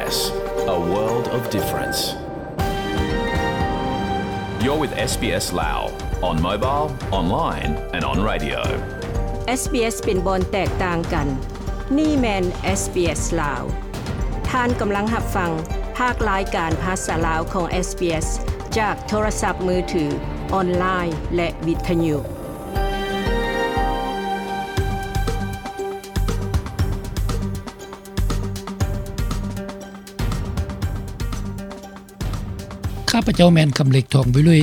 A world of difference. You're with SBS Lao on mobile, online and on radio. SBS ເປັນບ່ອນແຕກຕ່າງກັນ. ນີ້ແມ່ນ SBS ລາວ. ທ່ານກຳລັງຮັບຟັງພາກລາຍການພາສາລາວຂອງ SBS ຈາກໂທລະສັບມືຖື, ອອນລາຍ ແລະ ວິທະຍຸ. ຂ້າພະເຈົ້າແມ່ນຄຳເລັກ ທອງວິລຸຍ.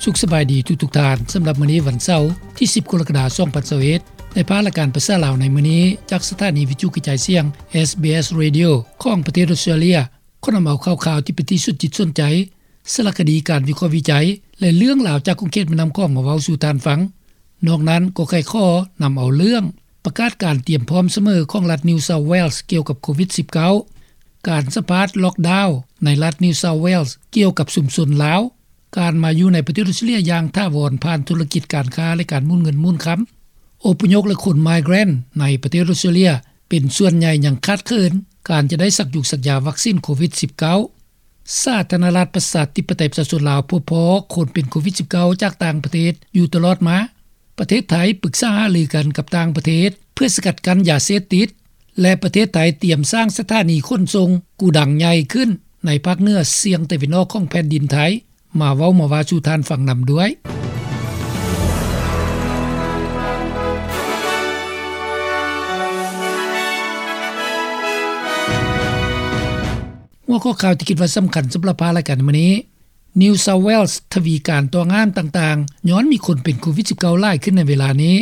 ສຸກສະບາຍດີທຸກໆທ່ານ. ສຳລັບມື້ນີ້ວັນເສົາ ທີສິບ ກໍລະກະດາ ສອງພັນຊາວເອັດ ໄດ້ພາລາຍການພາສາລາວໃນມື້ນີ້ ຈາກສະຖານີວິທະຍຸກະຈາຍສຽງ SBS Radio ຂອງປະເທດອອສເຕຣເລຍ ຂໍນຳເອົາຂ່າວຄາວທີ່ເປັນທີ່ສົນຈິດສົນໃຈ, ສາລະຄະດີ, ການວິເຄາະວິໄຈ ແລະ ເລື່ອງລາວຈາກຂົງເຂດແມ່ນ້ຳຂອງມາເວົ້າສູ່ທ່ານຟັງ. ນອກນັ້ນກໍໃຄ່ຂໍນຳເອົາເລື່ອງປະກາດການຕຽມພ້ອມສະເໝີຂອງລັດ New South Wales ກ່ຽວກັບໂຄວິດສິບເກົ້າ, ການສຳພາດລັອກດາວໃນລັດ New South Wales ກ່ຽວກັບຊຸມຊົນລາວ, ການມາຢູ່ໃນປະເທດອອສເຕຣເລຍຢ່າງຖາວອນຜ່ານທຸລະກິດການຄ້າ ແລະ ການໝູນເງິນໝູນຄຳ, ອົບພະຍົບ ແລະ ຄົນ migrant ໃນປະເທດອອສເຕຣເລຍ ເປັນສ່ວນໃຫຍ່ຍັງຂາດເຂີນການຈະໄດ້ສັກຢູສັກຢາວັກຊິນໂຄວິດສິບເກົ້າ. ສາທາລະນະລັດປະຊາທິປະໄຕປະຊາຊົນລາວ ພົບພໍ້ຄົນເປັນໂຄວິດສິບເກົ້າຈາກຕ່າງປະເທດຢູ່ຕະຫຼອດມາ. ປະເທດໄທປຶກສາຫາລືກັນກັບຕ່າງປະເທດເພື່ອສະກັດກັ້ນຢາເສບຕິດ ແລະ ປະເທດໄທຕຽມສ້າງສະຖານີຂົນສົ່ງກູດັງໃຫຍ່ຂຶ້ນໃນພາກເໜືອສ່ຽງຕາເວັນອອກຂອງແຜ່ນດິນໄທ. ມາເວົ້າມາວ່າສູ່ທ່ານຟັງນຳດ້ວຍ. ຫົວຂໍ້ຂ່າວທີ່ຄິດວ່າສຳຄັນສຳລັບພາລາຍການໃນມື້ນີ້, New South Wales ທະວີການຕ້ອງຫ້າມຕ່າງໆ ຍ້ອນມີຄົນເປັນໂຄວິດສິບເກົ້າຫຼາຍຂຶ້ນໃນເວລານີ້.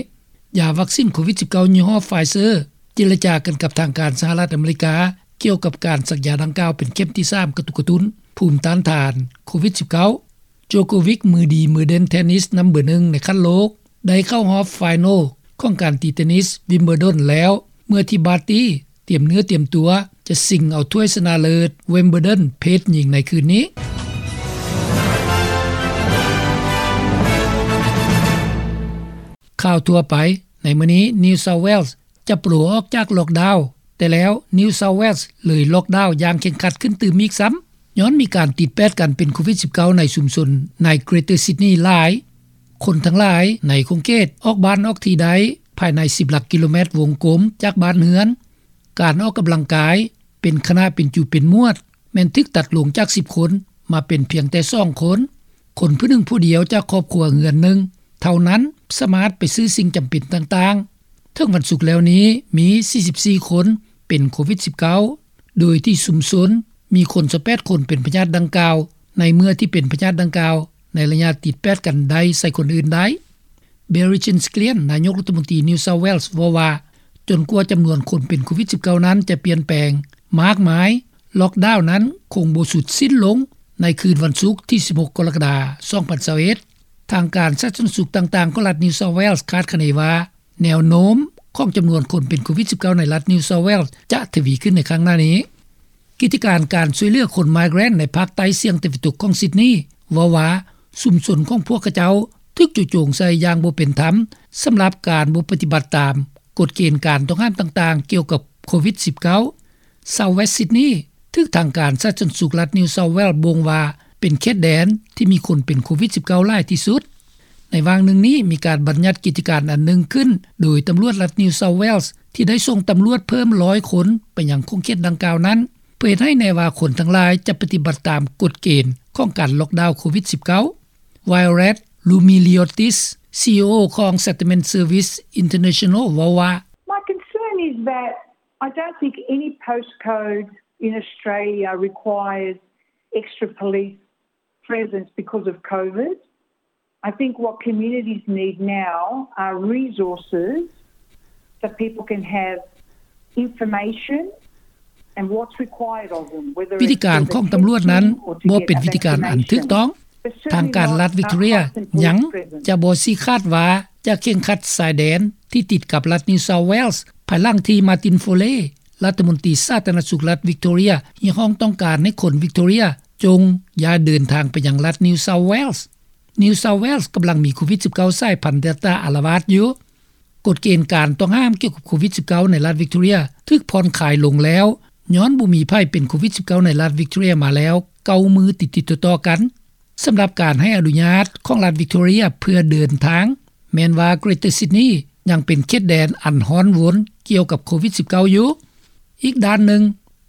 ຢາວັກຊິນໂຄວິດສິບເກົ້າຍີ່ຫໍ້ Pfizer ເຈລະຈາກັນກັບທາງການສະຫະລັດອາເມລິກາ ກ່ຽວກັບການສັກຢາດັ່ງກ່າວເປັນເຂັມທີສາມ ກະຕຸກກະຕຸ້ນພູມຕ້ານທານໂຄວິດສິບເກົ້າ. Djokovic ມືດີມືເດັ່ນເທນນິສນຳເບີໜຶ່ງໃນຂັ້ນໂລກ ໄດ້ເຂົ້າຮອບ final ຂອງການຕີເທນນິສ Wimbledon ແລ້ວ ເມື່ອທີ່ Barty ຕຽມເນື້ອຕຽມຕົວຈະຊິງເອົາຖ້ວຍຊະນະເລີດ Wimbledon ເພດຍິງໃນຄືນນີ້. ຂ່າວທົ່ວໄປໃນມື້ນີ້, New South Wales ຈະໂປອອກຈາກລັອກດາວ, ແຕ່ແລ້ວ New South Wales ເລີຍລັອກດາວຢ່າງເຄັ່ງຄັດຂຶ້ນຕື່ມອີກຊ້ຳ ຍ້ອນມີການຕິດແປດກັນເປັນໂຄວິດສິບເກົ້າໃນຊຸມຊົນໃນ Greater Sydney ຫຼາຍ. ຄົນທັງຫຼາຍໃນຂົງເຂດອອກບ້ານອອກທີ່ໄດ້ພາຍໃນສິບຫຼັກກິໂລແມັດວົງກົມຈາກບ້ານເຮືອນ. ການອອກກຳລັງກາຍເປັນຄະນະເປັນຈຸເປັນໝວດ ແມ່ນຖືກຕັດລົງຈາກສິບຄົນ ມາເປັນພຽງແຕ່ສອງຄົນ. ຄົນຜູ້ໜຶ່ງຜູ້ດຽວຈາກຄອບຄົວເຮືອນໜຶ່ງເທົ່ານັ້ນ ສາມາດໄປຊື້ສິ່ງຈຳເປັນຕ່າງໆ. ເຖິງວັນສຸກແລ້ວນີ້ ມີສີ່ສິບສີ່ຄົນເປັນໂຄວິດສິບເກົ້າ ໂດຍທີ່ຊຸມຊົນມີຄົນຊາວແປດຄົນເປັນພະຍາດດັ່ງກ່າວ ໃນເມື່ອທີ່ເປັນພະຍາດດັ່ງກ່າວໃນໄລຍະຕິດແປດກັນໄດ້ໃສ່ຄົນອື່ນໄດ້. Barry Chesglian ນາຍົກລັດຖະມົນຕີ New South Wales ເວົ້າວ່າ ຈົນກວ່າຈຳນວນຄົນເປັນໂຄວິດສິບເກົ້ານັ້ນຈະປ່ຽນແປງມາກມາຍ, ລັອກດາວນັ້ນຄົງບໍ່ສຸດສິ້ນລົງໃນຄືນວັນສຸກທີສິບຫົກ ກໍລະກະດາ ສອງພັນຊາວເອັດ. ທາງການສາທາລະນະສຸກຕ່າງໆຂອງລັດ New South Wales ຄາດຄະເນວ່າ ແນວໂນ້ມຂອງຈຳນວນຄົນເປັນໂຄວິດສິບເກົ້າໃນລັດ New South Wales ຈະທະວີຂຶ້ນໃນຄັ້ງໜ້ານີ້. ກິດຈະການການຊ່ວຍເຫຼືອຄົນ migrant ໃນພາກໃຕ້ສ່ຽງຕາເວັນຕົກຂອງ Sydney ເວົ້າວ່າ ຊຸມຊົນຂອງພວກເຂົາເຈົ້າຖືກຈຸໂຈງໃສ່ຢ່າງບໍ່ເປັນທຳ ສຳລັບການບໍ່ປະຕິບັດຕາມກົດເກນການຕ້ອງຫ້າມຕ່າງໆກ່ຽວກັບໂຄວິດສິບເກົ້າ. South West Sydney ຖືກທາງການສາທາລະນະສຸກລັດ New South Wales ບົ່ງວ່າເປັນເຂດແດນທີ່ມີຄົນເປັນໂຄວິດສິບເກົ້າຫຼາຍທີ່ສຸດ. ໃນຫວ່າງໜຶ່ງນີ້ ມີການບັນຍັດກິດຈະການອັນໜຶ່ງຂຶ້ນ ໂດຍຕຳຫຼວດລັດ New South Wales ທີ່ໄດ້ສົ່ງຕຳຫຼວດເພີ່ມຮ້ອຍຄົນໄປຍັງຂົງເຂດດັ່ງກ່າວນັ້ນ ເພື່ອເຮັດໃຫ້ແນ່ວ່າຄົນທັງຫຼາຍຈະປະຕິບັດຕາມກົດເກນຂອງການລັອກດາວໂຄວິດສິບເກົ້າ. Violet Roumeliotis, CEO ຂອງ Settlement Services International ເວົ້າວ່າ My concern is that I don't think any postcode in Australia requires extra police presence because of COVID. I think what communities need now are resources that people can have information and what's required of them, whether ວິທີການຂອງຕຳຫຼວດນັ້ນບໍ່ເປັນວິທີການອັນຖືກຕ້ອງ. ທາງການລັດ Victoria ຍັງຈະບໍ່ຊີ້ຂາດວ່າຈະເຄັ່ງຄັດຊາຍແດນທີ່ຕິດກັບລັດ New South Wales ພາຍຫຼັງທີ່ Martin Foley ລັດຖະມົນຕີສາທາລະນະສຸກລັດ Victoria ຮຽກຮ້ອງຕ້ອງການໃຫ້ຄົນ Victoria ຈົ່ງຢ່າເດີນທາງໄປຍັງລັດ New South Wales. New South Wales ກຳລັງມີໂຄວິດສິບເກົ້າສາຍພັນ Delta ອາລະວາດຢູ່. ກົດເກນການຕ້ອງຫ້າມກ່ຽວກັບໂຄວິດສິບເກົ້າໃນລັດ Victoria ຖືກຜ່ອນຄາຍລົງແລ້ວ ຍ້ອນບໍ່ມີໃຜເປັນໂຄວິດ-19 ໃນລັດວິກຕໍເຣັຍມາແລ້ວ ເກົ້າມື້ຕິດໆຕໍ່ໆກັນ. ສຳລັບການໃຫ້ອະນຸຍາດຂອງລັດວິກຕໍເຣັຍເພື່ອເດີນທາງ ແມ່ນວ່າ Greater Sydney ຍັງເປັນເຂດແດນອັນຮ້ອນວົນກ່ຽວກັບໂຄວິດ-19 ຢູ່. ອີກດ້ານໜຶ່ງ,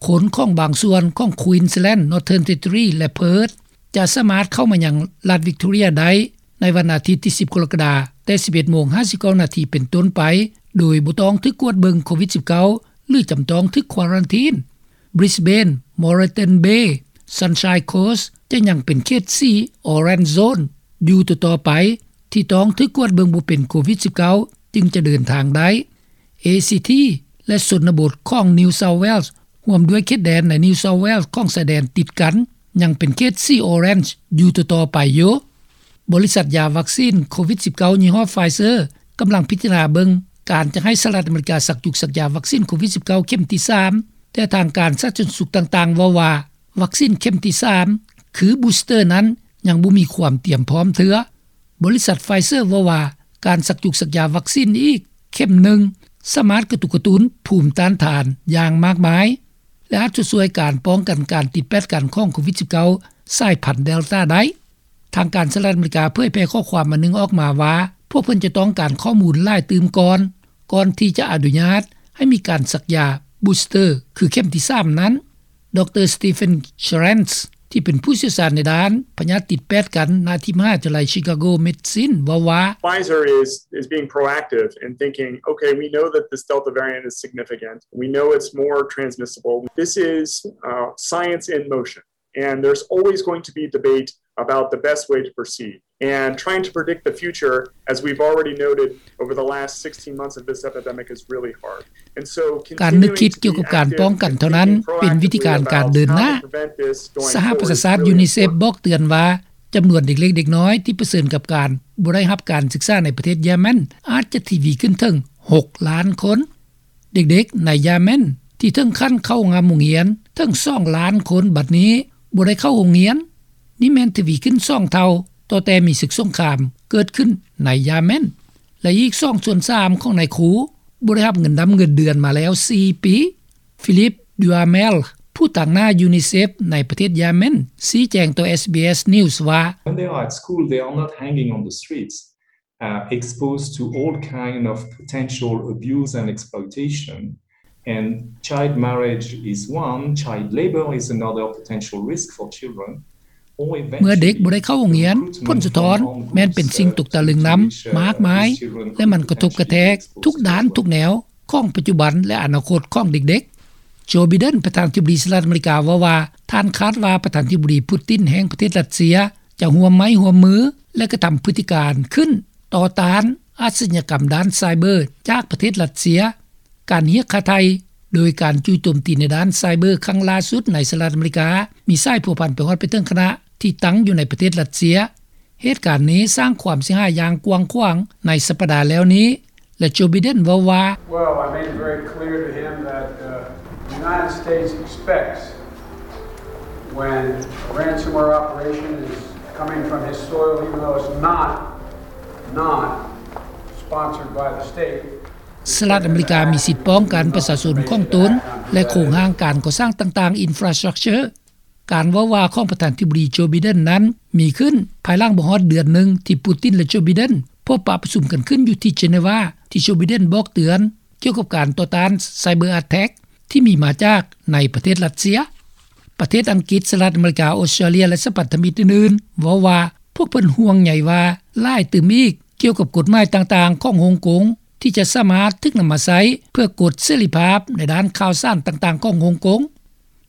ຄົນຂອງບາງສ່ວນຂອງ Queensland, Northern Territory ແລະ Perth ຈະສາມາດເຂົ້າມາຍັງລັດວິກຕໍເຣັຍໄດ້ໃນວັນອາທິດທີ ສິບ ກໍລະກະດາ ແຕ່ ສິບເອັດໂມງ ຫ້າສິບເກົ້ານາທີເປັນຕົ້ນໄປ ໂດຍບໍ່ຕ້ອງຖືກກວດເບິ່ງໂຄວິດ-19 ຫຼື ຈຳຕ້ອງຖືກຄວາຣັນທີນ. Brisbane, Moreton Bay, Sunshine Coast ຈະຍັງເປັນເຂດສີ Orange Zone ຢູ່ຕໍ່ໆໄປ ທີ່ຕ້ອງຖືກກວດເບິ່ງບໍ່ເປັນໂຄວິດ-19 ຈຶ່ງຈະເດີນທາງໄດ້. ເອຊີທີ ແລະ ຊົນນະບົດຂອງ New South Wales ຮ່ວມດ້ວຍເຂດແດນໃນ New South Wales ຂອງຊາຍແດນຕິດກັນ ຍັງເປັນເຂດສີ Orange ຢູ່ຕໍ່ໆໄປຢູ່. ບໍລິສັດຢາວັກຊີນໂຄວິດ-19 ຍີ່ຫໍ້ Pfizer ກຳລັງພິຈາລະນາເບິ່ງການຈະໃຫ້ສະຫະລັດອາເມລິກາສັກຈຸກສັກຢາວັກຊີນໂຄວິດ-19 ເຂັມທີ ສາມ ແຕ່ທາງການສາທາລະນະສຸກຕ່າງໆເວົ້າວ່າ ວັກຊີນເຂັມທີ ສາມ ຄື Booster ນັ້ນ ຍັງບໍ່ມີຄວາມຕຽມພ້ອມເທື່ອ. ບໍລິສັດ Pfizer ເວົ້າວ່າ ການສັກຈຸກສັກຢາວັກຊີນອີກເຂັມໜຶ່ງ ສາມາດກະຕຸກກະຕຸ້ນພູມຕ້ານທານຢ່າງມາກມາຍ ແລະ ອາດຈະຊ່ວຍການປ້ອງກັນການຕິດແປດກັນຂອງໂຄວິດ-19 ສາຍພັນ Delta ໄດ້. ທາງການສະຫະລັດອາເມລິກາເຜີຍແຜ່ຂໍ້ຄວາມອັນໜຶ່ງອອກມາວ່າ ພວກເພິ່ນຈະຕ້ອງການຂໍ້ມູນຫຼາຍຕື່ມກ່ອນ ກ່ອນທີ່ຈະອະນຸຍາດໃຫ້ມີການສັກຢາ Booster ຄືເຂັມທີ ສາມ ນັ້ນ. ດຣ Stephen Schranz ທີ່ເປັນຜູ້ຊ່ຽວຊານໃນດ້ານພະຍາດຕິດແປດກັນ ນະທີ່ມະຫາວິທະຍາໄລ Chicago Medicine ເວົ້າວ່າ Pfizer is, is being proactive in thinking, okay, we know that this Delta variant is significant. We know it's more transmissible. This is, uh, science in motion. And there's always going to be debate about the best way to proceed. And trying to predict the future, as we've already noted over the last sixteen months of this epidemic, is really hard. And so ການນຶກຄິດກ່ຽວກັບການປ້ອງກັນເທົ່ານັ້ນ ເປັນວິທີການການເດີນໜ້າ. ສະຫະປະຊາຊາດ UNICEF ບອກເຕືອນວ່າ ຈຳນວນເດັກເລັກເດັກນ້ອຍທີ່ປະເຊີນກັບການບໍ່ໄດ້ຮັບການສຶກສາໃນປະເທດຢາແມນ ອາດຈະທະວີຂຶ້ນເຖິງ ຫົກລ້ານຄົນ. ເດັກໆໃນຢາແມນທີ່ເຖິງຂັ້ນເຂົ້າງາມໂຮງຮຽນເຖິງ ສອງລ້ານຄົນ ບັດນີ້ບໍ່ໄດ້ເຂົ້າໂຮງຮຽນ. ນີ້ແມ່ນທະວີຂຶ້ນສອງເທົ່າ ຕໍ່ແຕ່ມີສຶກສົງຄາມເກີດຂຶ້ນໃນຢາແມນ ແລະ ອີກສອງສ່ວນສາມຂອງນາຍຄູບໍ່ໄດ້ຮັບເງິນດຳເງິນເດືອນມາແລ້ວສີ່ປີ. Philip Duhamel ຜູ້ຕາງໜ້າ UNICEF ໃນປະເທດຢາແມນ ຊີ້ແຈງຕໍ່ SBS News ວ່າ When they are at school, they are not hanging on the streets, uh, exposed to all kind of potential abuse and exploitation. And child marriage is one, child labor is another potential risk for children. ເມື່ອເດັກບໍ່ໄດ້ເຂົ້າໂຮງຮຽນ, ຜົນສະທ້ອນແມ່ນເປັນສິ່ງຕົກຕະລຶງນຳມາກມາຍ ແລະ ມັນກະທົບກະແທກທຸກດ້ານທຸກແນວຂອງປັດຈຸບັນ ແລະ ອະນາຄົດຂອງເດັກໆ. Joe Biden ປະທານາທິບໍດີສະຫະລັດອາເມລິກາເວົ້າວ່າ ທ່ານຄາດວ່າປະທານາທິບໍດີ Putin ແຫ່ງປະເທດຣັດເຊຍ ຈະຮ່ວມໄມ້ຮ່ວມມື ແລະ ກະທຳພຶດຕິການຂຶ້ນຕໍ່ຕ້ານອາຊະຍາກຳດ້ານໄຊເບີຈາກປະເທດຣັດເຊຍ. ການຮຽກຄ່າໄຖ່ໂດຍການຈູ່ໂຈມຕີໃນດ້ານໄຊເບີຄັ້ງລ່າສຸດໃນສະຫະລັດອາເມລິກາ ມີສາຍພົວພັນໄປຮອດໄປເຖິງຄະນະທີ່ຕັ້ງຢູ່ໃນປະເທດຣັດເຊຍ. ເຫດການນີ້ສ້າງຄວາມເສຍຫາຍຢ່າງກວ້າງຂວາງໃນສັບປະດາແລ້ວນີ້ ແລະ Joe Biden ເວົ້າວ່າ Well, I made it very clear to him that, uh, the United States expects when a ransomware operation is coming from his soil, even though it's not, not sponsored by the state, ສະຫະລັດອາເມລິກາມີສິດປ້ອງກັນປະຊາຊົນຂອງຕົນ ແລະ ໂຄງຮ່າງການກໍ່ສ້າງຕ່າງໆ infrastructure. ການເວົ້າວ່າຂອງປະທານາທິບໍດີ Joe Biden ນັ້ນມີຂຶ້ນພາຍຫຼັງບໍ່ຮອດເດືອນໜຶ່ງທີ່ Putin ແລະ Joe Biden ພົບປະປະຊຸມກັນຂຶ້ນຢູ່ທີ່ Geneva ທີ່ Joe Biden ບອກເຕືອນກ່ຽວກັບການຕໍ່ຕ້ານ cyber attack ທີ່ມີມາຈາກໃນປະເທດຣັດເຊຍ. ປະເທດອັງກິດ, ສະຫະລັດອາເມລິກາ, ອົດສະຕຣາເລຍ ແລະ ສະພັນທະມິດອື່ນໆ ເວົ້າວ່າພວກເພິ່ນຫ່ວງໃຍວ່າຫຼາຍຕື່ມອີກ ກ່ຽວກັບກົດໝາຍຕ່າງໆຂອງຮົງກົງ ທີ່ຈະສາມາດຖືກນຳມາໃຊ້ເພື່ອກົດເສລີພາບໃນດ້ານຂ່າວສານຕ່າງໆຂອງຮົງກົງ.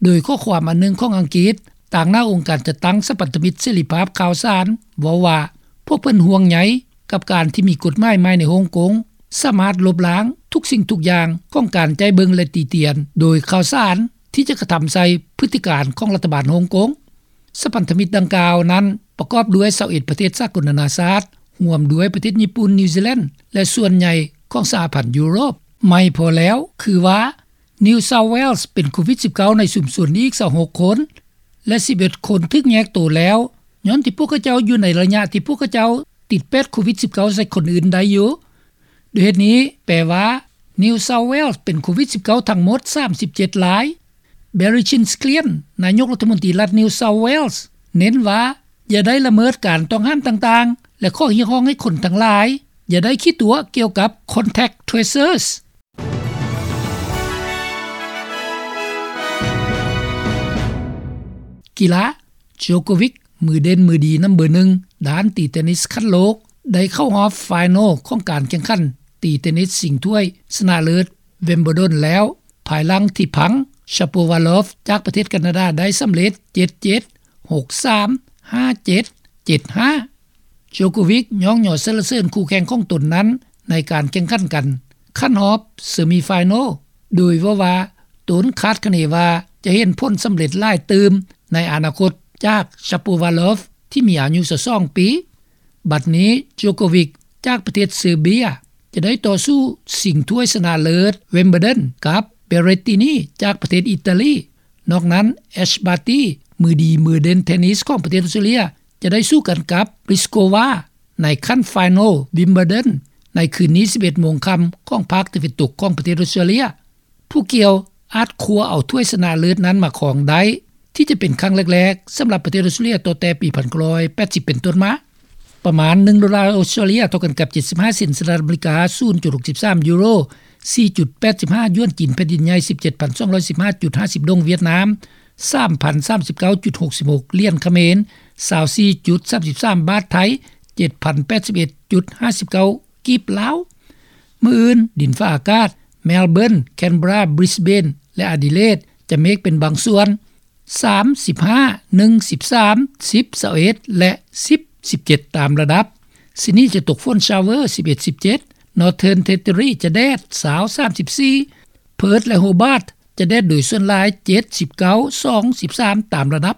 ໂດຍຂໍ້ຄວາມອັນໜຶ່ງຂອງອັງກິດ ຕາງໜ້າອົງການຈັດຕັ້ງສະພັນທະມິດເສລີພາບຂ່າວສານ ເວົ້າວ່າ ພວກເພິ່ນຫ່ວງໃຍກັບການທີ່ມີກົດໝາຍໃໝ່ໃນຮົງກົງ ສາມາດລົບລ້າງທຸກສິ່ງທຸກຢ່າງຂອງການໃຈເບິ່ງ ແລະ ຕິຕຽນໂດຍຂ່າວສານ ທີ່ຈະກະທຳໃສ່ພຶດຕິການຂອງລັດຖະບານຮົງກົງ. ສະພັນທະມິດດັ່ງກ່າວນັ້ນປະກອບດ້ວຍຊາວເອັດປະເທດສາກົນນານາຊາດ ຮ່ວມດ້ວຍປະເທດຍີ່ປຸ່ນ, ນິວຊີແລນ ແລະ ສ່ວນໃຫຍ່ຂອງສະຫະພັນຢູໂຣບ. ໃໝ່ພໍແລ້ວຄືວ່າ New South Wales ເປັນໂຄວິດ-19 ໃນຊຸມຊົນອີກຊາວຫົກຄົນ ແລະ ສິບເອັດຄົນຖືກແຍກໂຕແລ້ວ ຍ້ອນທີ່ພວກເຂົາເຈົ້າຢູ່ໃນໄລຍະທີ່ພວກເຂົາເຈົ້າຕິດແປດໂຄວິດ-19 ໃສ່ຄົນອື່ນໄດ້ຢູ່. ດ້ວຍເຫດນີ້ແປວ່າ New South Wales ເປັນໂຄວິດ-19 ທັງໝົດສາມສິບເຈັດລາຍ. Barry Chindglian ນາຍົກລັດຖະມົນຕີລັດ New South Wales ເນັ້ນວ່າ ຢ່າໄດ້ລະເມີດການຕ້ອງຫ້າມຕ່າງໆ ແລະ ຂໍ້ຮຽກຮ້ອງໃຫ້ຄົນທັງຫຼາຍ ຢ່າໄດ້ຂີ້ຕົວະກ່ຽວກັບ contact tracers. ກິລາ ໂຈໂກວິກ ມືເດັ່ນມືດີນຳເບີໜຶ່ງ ດ້ານຕີເຕນນິສຂັ້ນໂລກ ໄດ້ເຂົ້າຮອບໄຟນອລຂອງການແຂ່ງຂັນຕີເຕນນິສຊິງຖ້ວຍຊະນະເລີດ Wimbledon ແລ້ວ ພາຍຫຼັງທີ່ພັງ Shapovalov ຈາກປະເທດການາດາໄດ້ສຳເລັດ ເຈັດເຈັດ ຫົກສາມ ຫ້າເຈັດ ເຈັດຫ້າ. ໂຈໂກວິກຍ້ອງຍໍສັນລະເສີນຄູ່ແຂ່ງຂອງຕົນນັ້ນໃນການແຂ່ງຂັນກັນຂັ້ນຮອບເຊມີໄຟນອລ ໂດຍເວົ້າວ່າ ຕົນຄາດຄະເນວ່າຈະເຫັນຜົນສຳເລັດຫຼາຍຕື່ມໃນອະນາຄົດຈາກ Shapovalov ທີ່ມີອາຍຸຊາວສອງປີ. ບັດນີ້ ໂຈໂກວິກ ຈາກປະເທດເຊີເບຍ ຈະໄດ້ຕໍ່ສູ້ຊິງຖ້ວຍຊະນະເລີດ Wimbledon ກັບ Berrettini ຈາກປະເທດອີຕາລີ. ນອກນັ້ນ Ash Barty ມືດີມືເດັ່ນເທນນິສຂອງປະເທດອອສເຕຣເລຍ ຈະໄດ້ສູ້ກັນກັບ Pliskova ໃນຂັ້ນໄຟນອລ Wimbledon ໃນຄືນນີ້ ສິບເອັດໂມງຄ່ຳຂອງພາກຕາເວັນຕົກຂອງປະເທດອອສເຕຣເລຍ. ຜູ້ກ່ຽວອາດຄວ້າເອົາຖ້ວຍຊະນະເລີດນັ້ນມາຄອງໄດ້ ທີ່ຈະເປັນຄັ້ງແລກໆສຳລັບປະເທດອອສເຕຣເລຍ ຕັ້ງແຕ່ປີ ໜຶ່ງພັນເກົ້າຮ້ອຍແປດສິບ ເປັນຕົ້ນມາ. ປະມານໜຶ່ງໂດລາອອສເຕຣເລຍ ເທົ່າກັນກັບ ເຈັດສິບຫ້າເຊັນສະຫະລັດອາເມລິກາ, ສູນຈຸດຫົກສິບສາມຢູໂຣ, ສີ່ຈຸດແປດສິບຫ້າຢວນຈີນແຜ່ນດິນໃຫຍ່, ສິບເຈັດພັນສອງຮ້ອຍສິບຫ້າຈຸດຫ້າສິບດົງຫວຽດນາມ, ສາມພັນສາມສິບເກົ້າຈຸດຫົກສິບຫົກຫຼຽນຂະເໝນ, ຊາວສີ່ຈຸດສາມສິບສາມບາດໄທ, ເຈັດພັນແປດສິບເອັດຈຸດຫ້າສິບເກົ້າກີບລາວ. ມື້ອື່ນ ດິນຟ້າອາກາດ Melbourne, Canberra, Brisbane ແລະ Adelaide ຈະເມກເປັນບາງສ່ວນ ສາມສິບຫ້າ, ໜຶ່ງສິບສາມ, ສິບຊາວເອັດ ແລະ ສິບສິບເຈັດຕາມລະດັບ. Sydney ຈະຕົກຝົນ ຊາວເວີ ສິບເອັດ ສິບເຈັດ, Northern Territory ຈະແດດ ຊາວ ສາມສິບສີ່, Perth ແລະ Hobart ຈະແດດໂດຍສ່ວນຫຼາຍ ເຈັດສິບເກົ້າ ສອງສິບສາມຕາມລະດັບ.